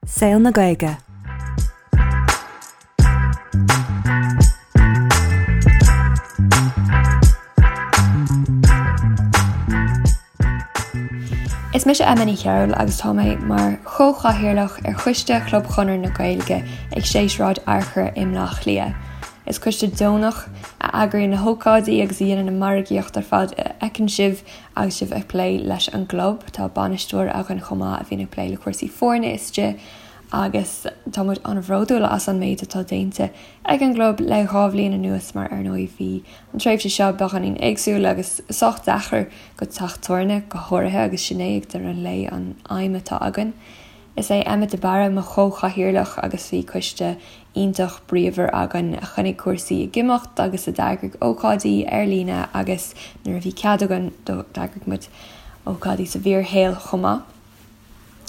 Saol na Gaeilge. Is mise Emma Ní Chearúil agus tá mé mar chomhchathaoirleach ar choiste Chlub Chonradh na Gaeilge ag 6 Sráid Fhearchair i mBleá Cliath. Is coiste deonach a eagraíonn na hócáidí agus a dhéanann an margaíocht ar fad a fheiceann sibh agus sibh ag plé leis an gclub. Tá bainisteoir againn chomh maith a bhíonn ag plé le cúrsaí foirne istigh agus tá muid an-bhródúil as an méid atá déanta ag an gclub le 2 bhliain anuas mar ar ndóigh bhí an tréimhse seo beagáinín éagsúil agus sách deacair go teach tabhairne go háirithe agus sin é ag deireadh an lae an aidhm atá againn. Is é Emmet de Barra mo chomh-chathaoirleach agus bhí coiste iontach bríomhar againn a choinnigh cúrsaí ag imeacht agus a d'eagraigh ócáidí ar líne agus nuair a bhí cead againn d'eagraigh muid ócáidí sa bhfíorshaol chomh maith.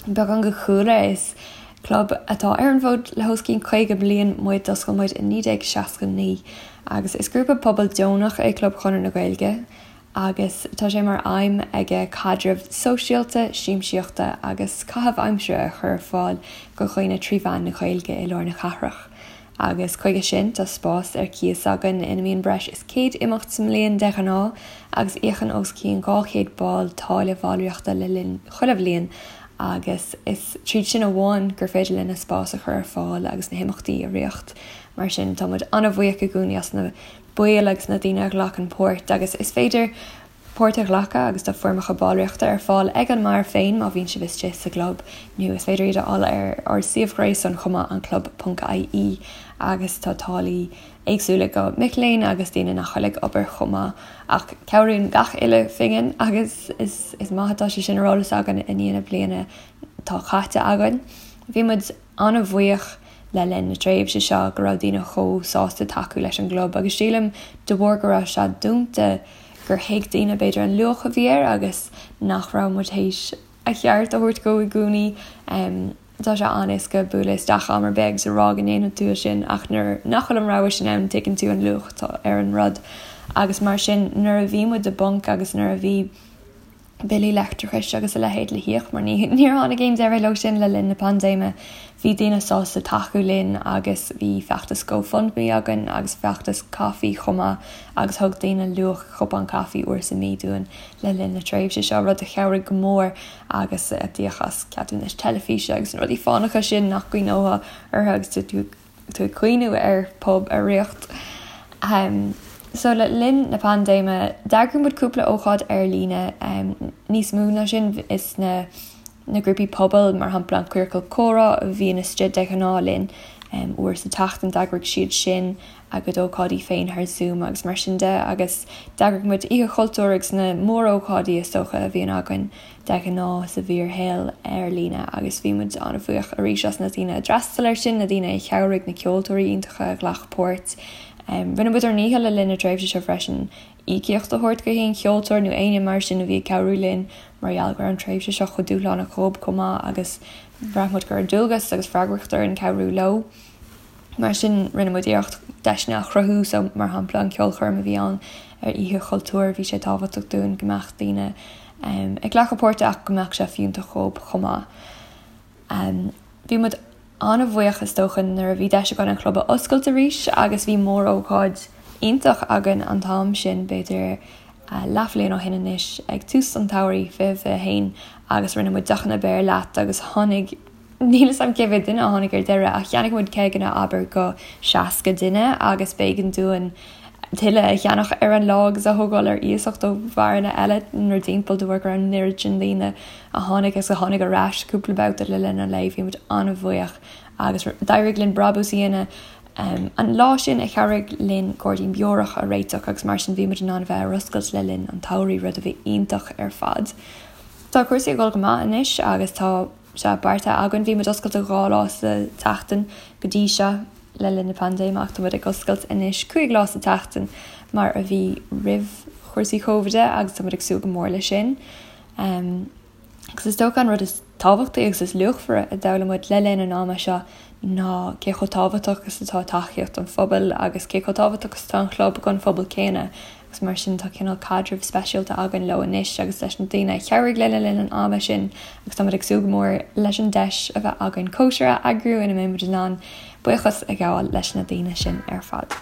Beagán de chúlra, is club atá ar an bhfód le os cionn 50 bliain muid, d'oscail muid i 1969 agus is grúpa pobail deonach é Club Chonradh na Gaeilge. agus tá sé mar aidhm aige caidreamh sóisialta, siamsaíochta agus caitheamh aimsire a chur ar fáil go dhaoine trí mheán na Gaeilge i lár na cathrach. Agus chuige sin tá spás ar cíos againn ina mbíonn breis is 100 imeacht sa mbliain de ghnáth agus íocann os cionn 200 ball táille bhallraíochta le linn chuile bhliain agus is tríd sin amháin gur féidir linn an spás a chur ar fáil agus na himeachtaí a ritheacht. Mar sin tá muid an-bhuíoch i gcónaí as na baill agus na daoine a ghlacann páirt agus is féidir páirt a ghlacadh agus tá foirmeacha ballraíochta ar fáil ag an mbeár féin má bhíonn sibh istigh sa gclub nó is féidir iad a fháil ar ár suíomh gréasáin chomh maith anclub.ie agus tá táillí éagsúla go mic léinn agus daoine nach bhfuil ag obair chomh maith ach cabhraíonn gach uile phingin agus is is maith atá sé sin ar eolas againn i ndiaidh na bliana atá caite againn. Bhí muid an-bhuíoch le linn na tréimhse seo go raibh daoine chomh sásta tacú leis an gclub agus sílim de bharr go raibh sé dúnta gur thuig daoine b'fhéidir an luach a bhí air agus nach raibh muid théis a cheart a thabhairt dó i gcónaí. Tá sé an-éasca bualadh isteach am ar bith agus a rá go ndéanfaidh tú é sin ach nuair nach bhfuil an rogha sin ann tuigeann tú an luach atá ar an rud agus mar sin nuair a bhí muid i bponc agus nuair a bhí billí leictreachais agus a leithéid le híoc mar níor tháinig aon deireadh leo sin le linn na paindéime. Bhí daoine sásta tacú linn agus bhí feachtas GoFundMe againn agus feachtas caife chomh maith agus thug daoine luach cupán caife uair sa mí dúinn le linn na tréimhse seo, rud a chabhraigh go mór agus a d'íoc as ceadúnais teilifíse agus na rudaí fánacha sin nach gcuimhneofá orthu agus tú tú ag cuimhniú ar pub a ritheacht. So le linn na paindéime d'eagraigh muid cúpla ócáid ar líne, níos mó ná sin is na na grúpaí pobail mar shampla an Ciorcal Comhrá a bhíonn istigh de ghnáth linn uair sa tseachtain d'eagraigh siad sin a gcuid ócáidí féin thar Zoom agus mar sin de agus d'eagraigh muid Oíche Chultúir agus na mórócáidí is dócha a bhíonn againn de ghnáth sa bhfíorshaol ar líne agus bhí muid an-bhuíoch arís as na daoine a d'fhreastail air sin, na daoine a chabhraigh, na ceoltóirí iontacha a ghlac páirt. Rinne muid ár ndícheall le linn na tréimhse seo freisin íocaíocht a thabhairt go haon cheoltóir nó éinne mar sin a bhí ag cabhrú linn mar gheall go raibh an tréimhse seo chomh dúshlánach dhóib chomh maith agus bhraith muid go raibh dualgas agus freagracht orainn cabhrú leo. Mar sin, rinne muid iarracht deiseanna a chruthú, so mar shampla an ceolchoirm a bhí ann ar Oíche Chultúir, bhí sé tábhachtach dúinn go mbeadh daoine ag glacadh páirte ach go mbeadh sé fiúntach dhóib chomh maith. Bhí muid an-bhuíoch is dócha nuair a bhí deis againn an chlub a oscailt arís agus bhí mór-ócáid iontach againn an t-am sin, b'fhéidir leathbhliain ó shin anois, ag tús an tsamhraidh 2021 agus rinne muid deochanna beir leat agus tháinig Níl 'fhios a'm cé mhéad duine a tháinig ar deireadh ach cheannaigh muid ceigeanna abair go 60 duine agus b'éigean dúinn tuilleadh a cheannach ar an lá agus a thógáil ar iasacht ó bheáranna eile inár dtimpeall de bharr go raibh an oiread sin daoine a tháinig agus a tháinig ar ais cúpla babhta le linn an lae. Bhí muid an-bhuíoch agus d'éirigh linn brabús a dhéanamh an lá sin a chabhraigh linn gairdín beorach a réiteach agus mar sin bhí muid in ann a bheith ar oscailt le linn an tsamhraidh, rud a bhí iontach ar fad. Tá cúrsaí ag dul go maith anois agus tá sé beartaithe againn. Bhí muid oscailte 2 lá sa tseachtain go dtí seo le linn na paindéime ach tá muid ag oscailt anois 5 lá sa tseachtain mar a bhí roimh chúrsaí Covid agus tá muid ag súil go mór leis sin. Agus is dócha an rud is tábhachtaí agus is luachmhaire a d'fhoghlaim muid le linn an ama seo ná cé chomh tábhachtach is atá tacaíocht an phobail agus cé chomh tábhachtach is atá an chlub don phobal céanna. Agus mar sin tá cineál caidreamh speisialta againn leo anois agus leis na daoine a chabhraigh linn le linn an ama sin agus táimid ag súil go mór leis an deis a bheith againn cóisir a eagrú ina mbeidh muid in ann buíochas a ghabháil leis na daoine sin ar fad.